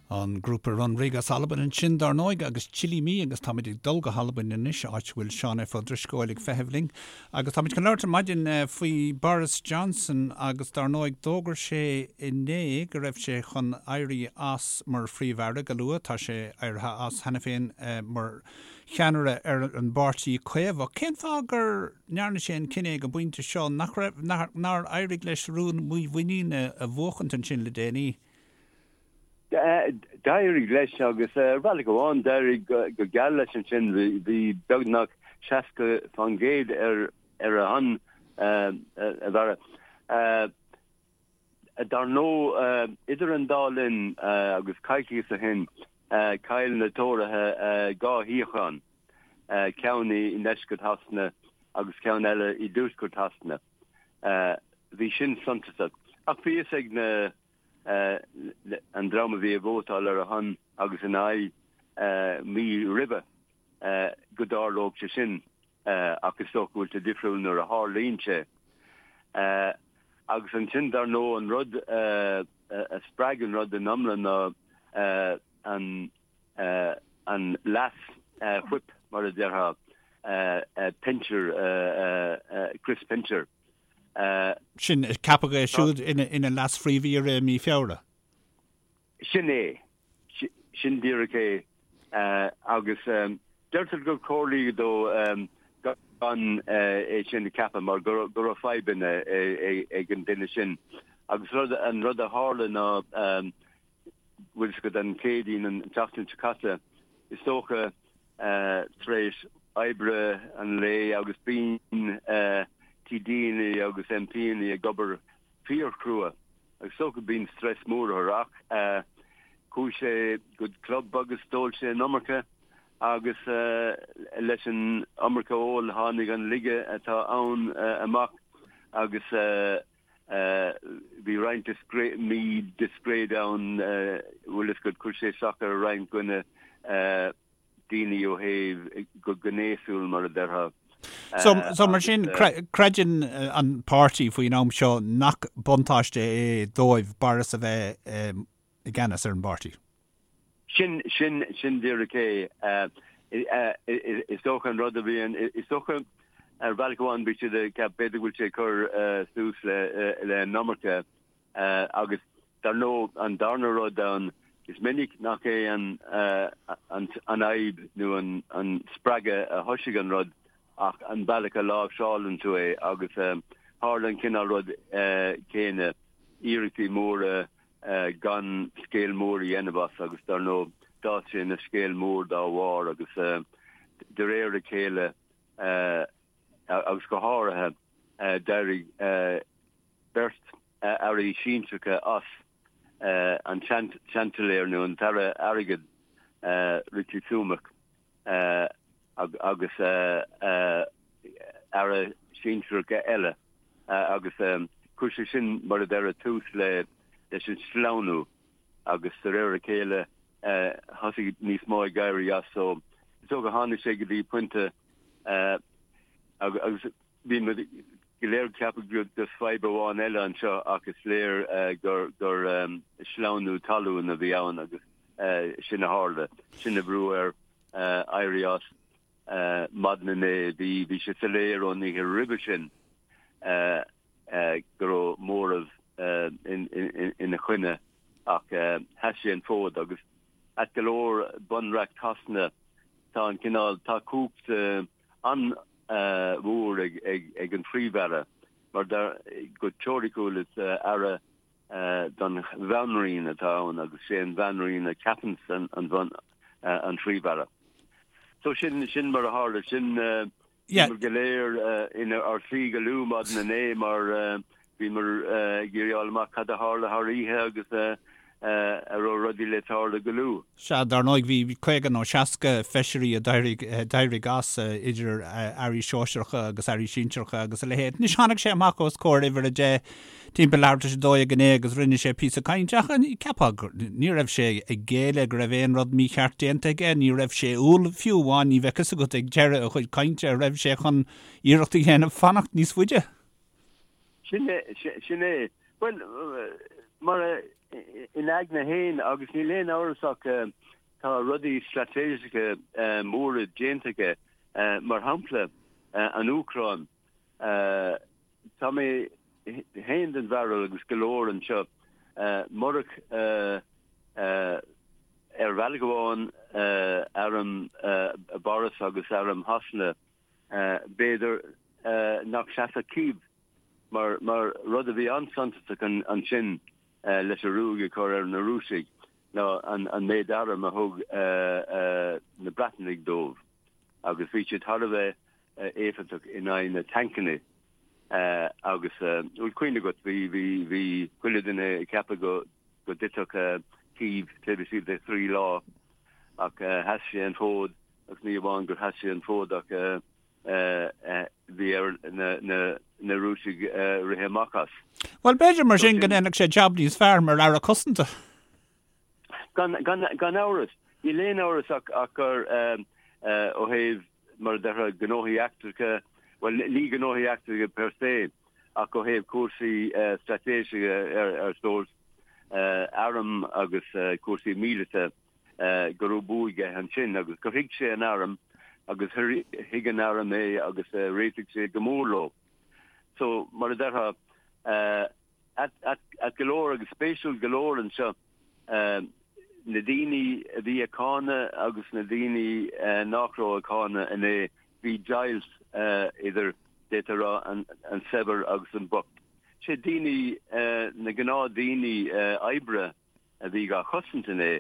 An grúpa Runrig as Albain ansin, dar ndóigh, agus Chilli Me, agus táimid ag dul go hAlbain anois, áit a bhfuil Seán F. Ó Drisceoil ag feitheamh linn. Agus táimid chun labhairt ar maidin faoi Boris Johnson agus dar ndóigh d'fhógair sé inné go raibh sé chun éirí as mar Phríomh-Aire go luath. Tá sé éirithe as cheana féin mar cheannaire ar an bPáirtí Caomhach. Cén fáth gur ndearna sé an cinneadh ag an bpointe seo nach raibh, nár éirigh leis rún mímhuiníne a bhuachaint ansin le déanaí? D'éirigh leis agus ar bhealach amháin d'éirigh go geal leis ansin. Bhí beagnach 60% ar ar a shon a Bharra. Dar ndóigh, idir an dá linn agus coicíos ó shin, chaill na Tóraithe 2 shuíochán, ceann i ndeisceart Shasana agus ceann eile i dtuaisceart Shasana. Bhí sin suntasach. Ach bhí fhios ag na an dream a bhí ag vótáil ar a shon agus ina aghaidh mí roimhe go dtarlódh sé sin ach is dócha go bhfuil sé difriúil nuair a tharlaíonn sé. Agus ansin dar ndóigh an rud a spreag an rud in iomlán ná an an leas whip mar a déarfá, Pincher, Chris Pincher. Sin, ceapadh é siúd ina leas-phríomh-aoire i mí Feabhra. Sin é. Sin díreach é. Agus deirtear gur comhairlíodh dó gan é sin a cheapadh mar go raibh fadhbanna ag an duine sin. Agus an rud a tharla ná bhfuil fhios agat an Chéadaoin an tseachtain seo caite, is dócha, tar éis oibre an lae agus bíonn TDanna agus MPanna ag obair fíorchrua agus is dócha bíonn stress mór orthu ach chuaigh sé go club agus d'ól sé an iomarca agus leis an iomarca óil tháinig an laige atá ann amach agus Bhí roinnt mídhiscréid ann, bhfuil fhios agat, chuir sé isteach ar roinnt de na daoine ó thaobh go gnéasúil, mar a déarfá. So, so mar sin, creideann an páirtí faoin am seo nach buntáiste é dóibh Boris a bheith i gceannas ar an bpáirtí? Sin, sin, sin díreach é. Is dócha an rud a bhíonn, is dócha ar bhealach amháin bhí siad ag ceapadh b'fhéidir go bhfuil sé ag cur suas le, le an iomarca agus dar ndóigh an darna rud ann, is minic nach é an, an, an fhadhb nó an, an spreagadh a thoisigh an rud ach an bealach a láimhseálann tú é agus tharla an cineál rud céanna, iarrachtaí móra gan scéal mór a dhéanamh as agus dar ndóigh d'fhás sé ina scéal mór dá bharr agus de réir a chéile agus go háirithe d'éirigh beirt airí sinsearacha as, an Seansailéir nó an tAire Airgid Rishi Sunak agus aire sinsearach eile agus chuir sé sin, mar a déarfá, tús leis an sleamhnú agus de réir a chéile thosaigh níos mó ag éirí as. So is dócha tháinig sé go dtí pointe agus bhí muid go léir ag ceapadh gur just fadhb amháin eile anseo ach is léir gur gur sleamhnú talún a bhí ann agus sin a tharla, sin a bhrúigh air éirí as. Maidin inné bhí bhí sé soiléir ón oíche roimhe sin go raibh móramh ina choinne ach sheas sé an fód agus ait go leor bunreacht Shasana tá an cineál tá cumhacht an-mhór ag an Phríomh-Aire mar go teoiriciúil is aire don Bhanríon atá ann agus sé an Bhanríon a cheapann an Phríomh-Aire. So sin sin mar a tharla sin bhíomar go léir inár suí go luath maidin inné mar bhíomar ag iarraidh fháil amach cad a tharla thar oíche agus a raibh rudaí le tarlú go luath. Sea, dar ndóigh bhí 50 nó 60 feisirí a d'éirigh as, idir airí sóisearacha agus airí sinsearacha agus a leithéid. Anois tháinig sé amach os comhair uimhir 10 timpeall leathuair tar éis a 12 inné agus rinne sé píosa cainte ach cheapfá gur ní raibh sé ag géilleadh go raibh aon rud mícheart déanta aige, ní raibh sé umhal fiú amháin, ní bheadh fhios agat ag deireadh a chuid cainte an raibh sé chun iarracht a dhéanamh fanacht níos faide. Sin é, sin é. Bhuel, mar a. Ina aigne féin, agus níl aon amhras ach tá rudaí straitéiseacha móra déanta aige, mar shampla an Úcráin. Tá mé féin den bharúil agus go leor anseo, murach ar bhealach amháin arm Boris agus arm Shasana, b'fhéidir nach seasfadh Cív mar mar rud a bhí an-suntasach ansin leis an ruaig a chur ar na Rúisigh ná an méid arm a thug na Breatanaigh dóibh agus bhí siad thar a bheith éifeachtach in aghaidh na tancanna agus bhfuil cuimhne agat bhí bhí bhí chuile duine ag ceapadh go go dtitfeadh Cív taobh istigh de thrí lá ach sheas sé an fód agus ní amháin gur sheas sé an fód ach bhí ar na Rúisigh rith amach as. Bhuel, b'fhéidir mar sin go ndéanfadh sé jab níos fearr mar Aire Cosanta. Gan amhras. Níl aon amhras ach gur ó thaobh, mar a déarfá, gnóthaí eachtracha, bhuel, ní gnóthaí eachtracha per se, ach ó thaobh cúrsaí straitéiseacha ar sórt arm agus cúrsaí míleata, go raibh bua aige ansin agus gur thuig sé an arm agus thuig an arm é agus réitigh sé go mór leo. So, mar a déarfá, ait go leor agus spéisiúil go leor anseo, na daoine a bhí ag cáineadh agus na daoine nach raibh ag cáineadh inné, bhí deighilt idir, d'fhéadfá a rá, an saibhir agus an bocht. Sé daoine, na gnáthdaoine oibre, a bhí dhá chosaint inné,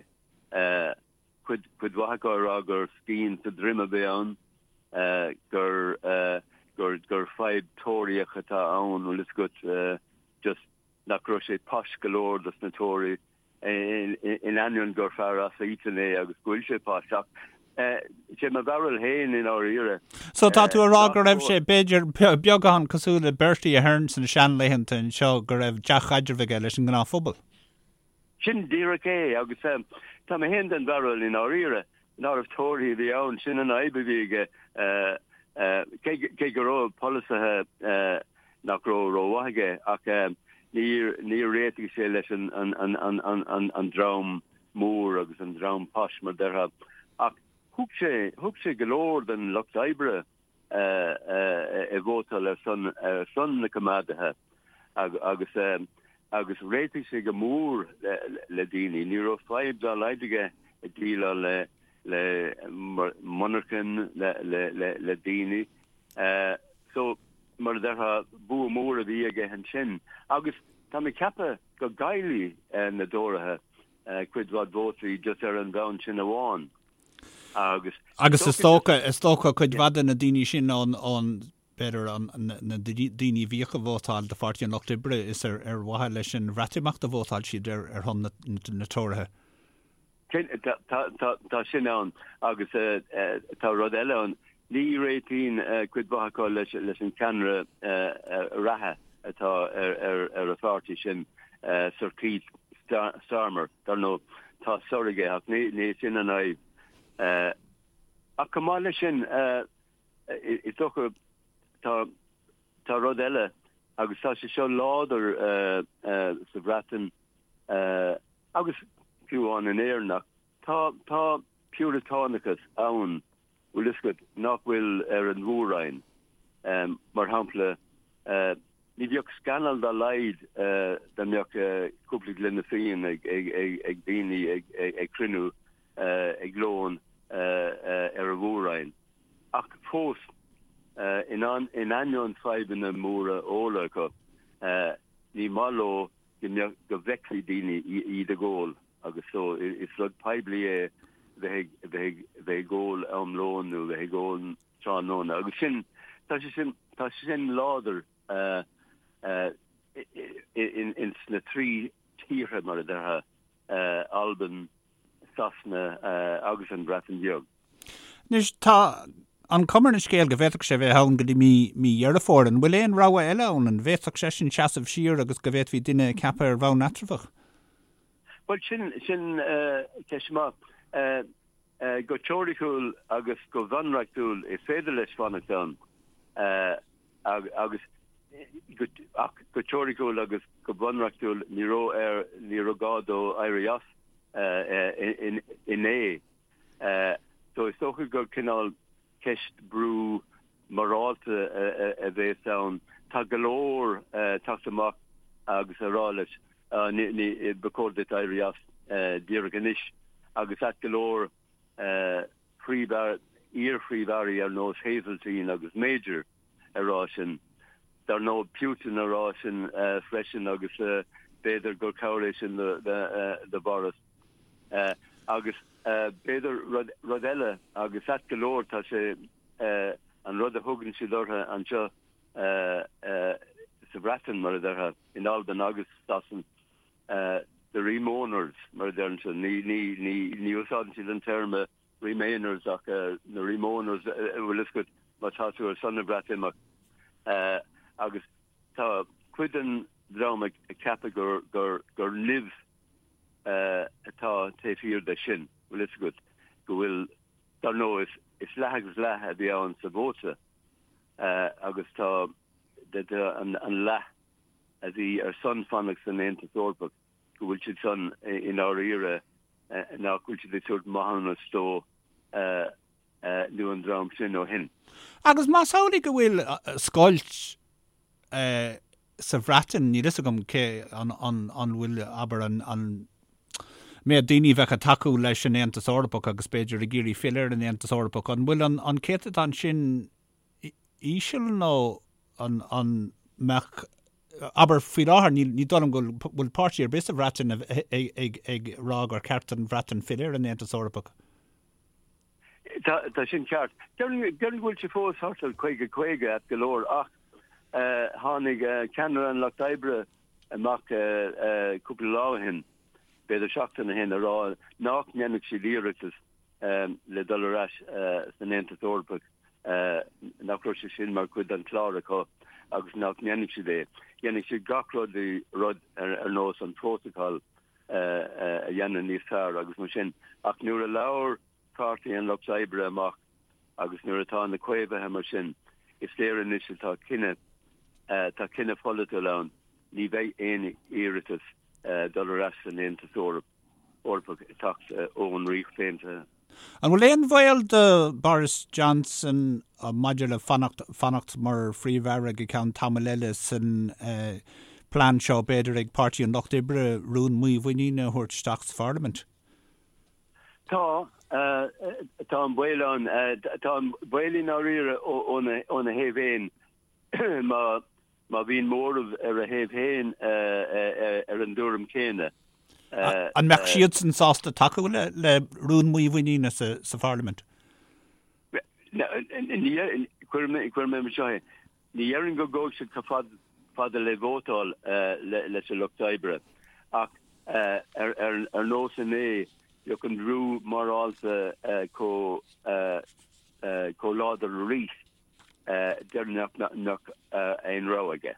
cuid mhaith acu ag rá gur scian sa droim a bhí ann, gur gur gur fadhb Tóraíoch atá ann, bhfuil fhios agat, just nach raibh sé posh go leor dos na Tóraí, in ainneoin gur fear as Eton é agus go bhfuil sé posh, ach sé mo bharúil féin i ndáiríre. So tá tú a rá go raibh sé, b'fhéidir, beagán cosúil le Bertie Ahern sna seanlaethanta anseo, go raibh dea-chaidreamh aige leis an ngnáthphobal? Sin díreach é, agus tá mé féin den bharúil i ndáiríre nárbh Tóraí a bhí ann, sin an fhadhb a bhí aige, cé go raibh polasaithe nach raibh rómhaith aige, ach níor réitigh sé leis an dream mór agus an dream posh, mar déarfá. Ach thug sé, thug sé go leor den lucht oibre ag vótáil ar son ar son na coimeádaithe agus agus réitigh sé go mór le daoine. Ní raibh fadhb dá laghad aige ag déileáil le le monarchain le le le daoine. So mar a déarfá bua mór a bhí aige ansin agus tá mé ag ceapadh go gcaillfidh na dTóraithe cuid mhaith vótaí just ar an bhonn sin amháin. Agus. Agus is dócha, is dócha cuid mhaith de na daoine sin ón, ón, b'fhéidir an, na daoine a bhíodh ag vótáil do Pháirtí an Lucht Oibre, is ar, ar mhaithe leis an Bhreatimeacht a vótáil siad ar, ar shon na, na Tóraithe. Sin, tá, tá, tá, tá sin ann agus tá rud eile ann. Ní réitíonn cuid mhaith acu leis, leis an cheannaire reatha atá ar, ar, ar an pháirtí sin, Sir Keir Starmer. Dar ndóigh, tá Sir aige ach ní, ní sin an fhadhb. Ach chomh maith leis sin, is dócha, tá, tá rud eile agus tá sé seo láidir sa Bhreatain agus fiú amháin in Éirinn ach tá, tá piúratánachas ann, bhfuil fhios agat, nach bhfuil ar an Mhór-Roinn. Mar shampla, Ní bheadh scannal dá laghad dá mbeadh cúpla gloine fíon ag daoine ag cruinniú ag lón ar an Mhór-Roinn. Ach fós, in ainneoin fadhbanna móra óil acu, ní maith leo go bhfeicfí daoine iad ag ól agus so is rud poiblí é bheith ag ól am lóin nó bheith ag ól tráthnóna agus sin, tá sé sin, tá sé sin láidir ins na trí tíortha mar a déarfá, Albain, Sasana agus an Bhreatain Bheag. Anois, tá an chuma ar an scéal go bhféadfadh sé bheith ann go dtí mí, mí Dheireadh Fómhair. An bhfuil aon rogha eile ann? An bhféadfadh seisean seasamh siar agus go bhféadfaí duine a cheapadh ar bhonn eatramhach? Bhuel, sin, sin ceist maith. Go teoiriciúil agus go bunreachtúil is féidir leis fanacht ann agus. Ach go teoiriciúil agus go bunreachtúil ní raibh air, ní raibh gá dó éirí as inné. So is dócha gur cineál ceist brú morálta a bhéas ann. Tá go leor teacht amach agus a rá leis, ba chóir duit éirí as díreach anois agus ait go leor iar-phríomh-airí ar nós Heseltine agus Major a rá sin. Dar ndóigh Putin a rá sin freisin agus b'fhéidir gur cabhair é sin do Boris. Agus b'fhéidir rud eile agus ait go leor tá sé an rud a thugann siad orthu anseo sa Bhreatain mar a déarfá, in Albain agus Sasain, the Remoaners mar a deireann siad. Ní úsáideann siad an téarma Remainers ach na Remoaners bhfuil fhios agat má tá tú ar son na Breatimeacht. Agus tá cuid den dream ag ceapadh gur gur gur nimh atá taobh thiar de sin, bhfuil fhios agat, go bhfuil, dar ndóigh is leath agus leath a bhí ann sa vóta agus tá an leath a bhí ar son fanacht san Aontas Eorpach, go bhfuil siad san i ndáiríre nach bhfuil siad ag tabhairt maithiúnas dó nó an dream sin ó shin. Agus más amhlaidh go bhfuil scoilt sa Bhreatain, níl fhios agam cé an bhfuil, abair, an méad daoine a bheadh ag tacú leis an Aontas Eorpach agus b'fhéidir ag iarraidh filleadh ar an Aontas Eorpach, an bhfuil an céatadán sin íseal nó an mbeadh, abair, faoi láthair, ní dóigh liom go bhfuil páirtí ar bith sa Bhreatain ag rá gur cheart don Bhreatain filleadh ar an Aontas Eorpach. Tá sin ceart. Déarfainn go bhfuil sé fós thart ar 50, 50 ait go leor ach tháinig ceannaire an Lucht Oibre amach cúpla lá ó shin, b'fhéidir seachtain ó shin, a rá nach ndéanfadh siad iarratas le dul ar ais san Aontas Eorpach, nach raibh sé sin mar chuid den chlár acu agus nach ndéanfadh siad é. Dhéanfadh siad gach rud rud ar nós an prótacal a dhéanamh níos fearr agus mar sin. Ach nuair a labhair Páirtí an Lucht Oibre amach agus nuair atá na Caomhaithe mar sin, is léir anois atá cinneadh, tá cinneadh pholaitiúil ann, ní bheidh aon iarratas dul ar ais san Aontas Eorpach. Eorpach ag teacht ón Ríocht Aontaithe. An bhfuil aon bhaol do Boris Johnson maidir le fanacht fanacht mar Phríomh-Aire go ceann tamaill eile san plean seo, b'fhéidir, ag Páirtí an Lucht Oibre rún mímhuiníne a thabhairt isteach sa Pharlaimint? Tá, tá an baol ann. Tá an baol i ndáiríre óna thaobh féin má Má bhíonn móramh ar a thaobh féin ar an dtuairim chéanna. An mbeadh siadsan sásta tacú le rún mímhuiníne sa Pharlaimint? Cuirfidh mé mar seo é, ní dhéarfainn go gabhfaidh siad chomh fada le vótáil leis an Lucht Oibre ach ar nós inné, bheadh an brú morálta chomh láidir arís. déarfainn nach mbeadh aon rogha aige.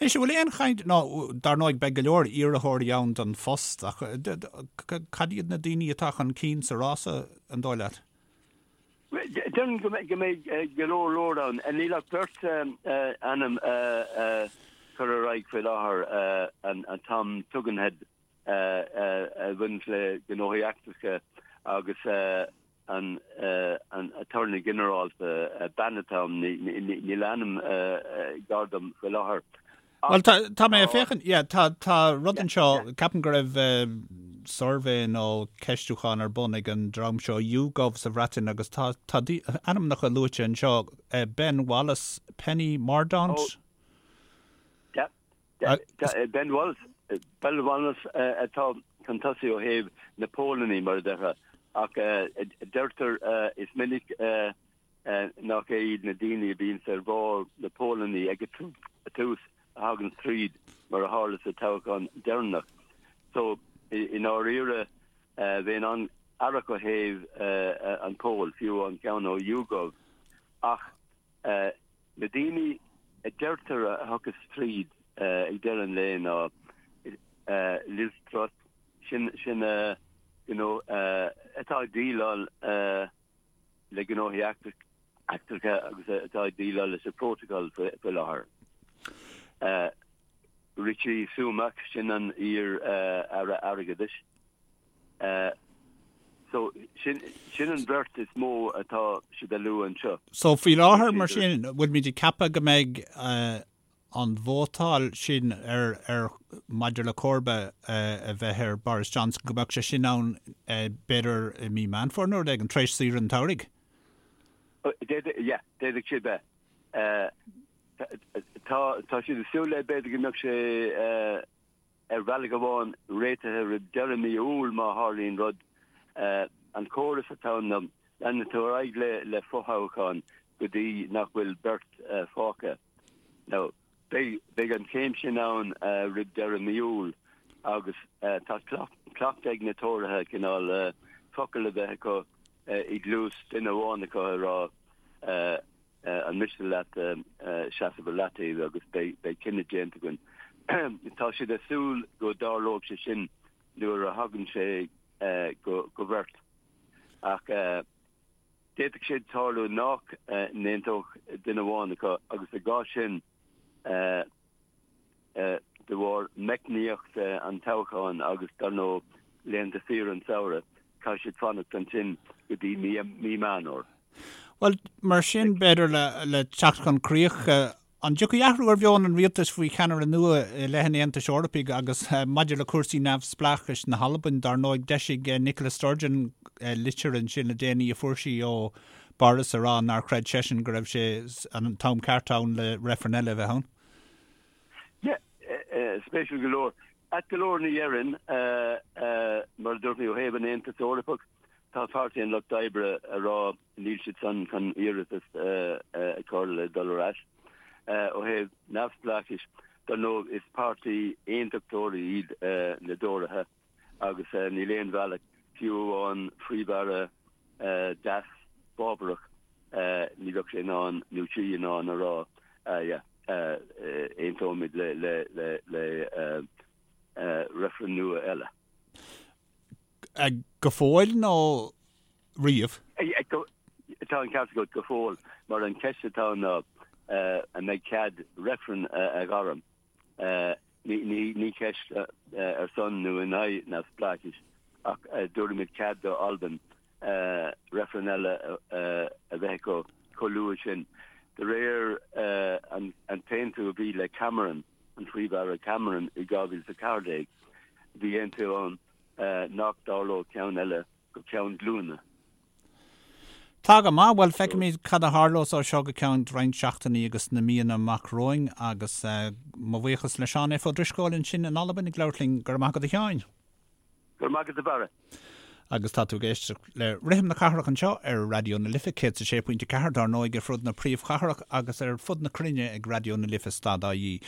Anois, an bhfuil aon chaint, nó dar ndóigh beidh go leor iarrthóirí ann don phost, ach cad iad na daoine atá chun cinn sa rása, an dóigh leat? Déarfainn go mbeidh go leor leor ann. Níl ach beirt ainm curtha ar aghaidh faoi láthair, an Tom Tugendhat a bhaineanns le gnóthaí eachtracha agus an Aturnae Ginearálta, bean atá ann, níl a ainm gar dom faoi láthair. Bhuel, tá mé ag féachaint, yeah, tá tá rud anseo, ceapaim go raibh suirbhé nó ceistiúchán ar bun ag an dream seo YouGov sa Bhreatain agus tá tá ainmneacha luaite anseo, Ben Wallace, Penny Mordaunt. Oh, yeah. Ben Wallace, Ben Wallace atá chun tosaigh ó thaobh na póilíní, mar a déarfá, ach deirtear is minic nach é iad na daoine a bhíonns ar bharr na póilíní ag an tús a thagann tríd, mar a tharla sa toghchán deireanach. So, i ndáiríre, bheinn an-aireach ó thaobh an poll, fiú an ceann ó YouGov, ach Na daoine a deirtear a thiocfas tríd ag deireadh an lae ná Liz Truss, sin sin you know atá ag déileáil le gnóthaí eachtracha agus atá ag déileáil leis an bprótacal faoi láthair. Rishi Sunak, sin an iar-aire airgeadais. So, sin an bheirt is mó atá siad a lua anseo. So, faoi láthair, mar sin, bhfuilimid ag ceapadh go mbeidh an vótáil sin ar, ar, maidir le comharba a bheith ar Boris Johnson, go mbeadh sé sin ann b'fhéidir i mí Meán Fómhair nó rud éigin, tar éis saoire an tsamhraidh? D'fhéadfadh, yeah, d'fhéadfadh sé bheith. Tá, tá siad ag súil le b'fhéidir go mbeadh sé ar bhealach amháin réitithe roimh deireadh mí Iúil má tharlaíonn rud. An córas atá ann ná leanann tú ar aghaidh le fothoghchán go dtí nach bhfuil beirt fágtha. Now, beidh an chéim sin ann roimh deireadh mí Iúil agus tá cleachtadh ag na Tóraithe cineál focal a bheith acu i gcluas duine amháin acu a rá an miste leat seasamh ar leataobh agus beidh cinneadh déanta againn. Tá siad ag súil go dtarlóidh sé sin nuair a thagann sé go bheirt ach d'fhéadfadh sé tarlú nach n-aontódh duine amháin acu agus i gcás sin de bharr meicníocht an toghcháin agus dar ndóigh laethanta saoire an tsamhraidh, caithfidh siad fanacht ansin go dtí mí Meán Fhómhair. Bhuel, mar sin, b'fhéidir le teacht chun críocha, an dtiocfaidh athrú ar mheon an rialtais faoi cheannaire nua i leith an Aontais Eorpaigh agus maidir le cúrsaí neamhspleáchais na hAlban? Dar ndóigh, d'eisigh Nicola Sturgeon litir ansin le déanaí a fuair sí ó Boris a rá nár chreid seisean go raibh sé an t-am ceart ann le reifreann eile a bheith ann. Yeah, spéisiúil go leor. Ait go leor ní dhéarfainn, mar a dúirt mé ó thaobh an Aontais Eorpaigh, tá Páirtí an Lucht Oibre a rá níl siad san chun iarratas a chur le dul ar ais. Ó thaobh neamhspleáchais, dar ndóigh is páirtí aontachtóirí iad na dTóraithe agus níl aon bhealach, fiú amháin Phríomh-Aire deas fábharach, ní bheadh sé in ann nó sí in ann a rá yeah aontóimid le le reifreann nua eile. Go fóill nó riamh? Tá an ceart agat, go fóill, mar an cheist atá ann ná an mbeidh cead reifreann a ghairm. Ní ceist ar son nó in aghaidh neamhspleáchais ach dtabharfaimid cead do Albain reifreann eile a bheith acu chomh luath sin. De réir an t-aontú a bhí le Cameron, an Phríomh-Aire Cameron i 2014, bhí aontú ann nach dtarlódh ceann eile go ceann glúine. Tá go maith. Bhuel, feicfimid cad a tharlós ó seo go ceann roinnt seachtainí agus na míonna amach romhainn agus mo bhuíochas le Seán F. Ó Drisceoil ansin in Albain ag labhairt linn. Go raibh maith agat a Sheáin. Go raibh maith agat a Bharra. Agus tá tú ag éisteacht le Rithim na Cathrach anseo ar Raidió na Life 106.4 dár ndóigh ar fud na príomhchathrach agus ar fud na cruinne ag Raidió na Life stad ie.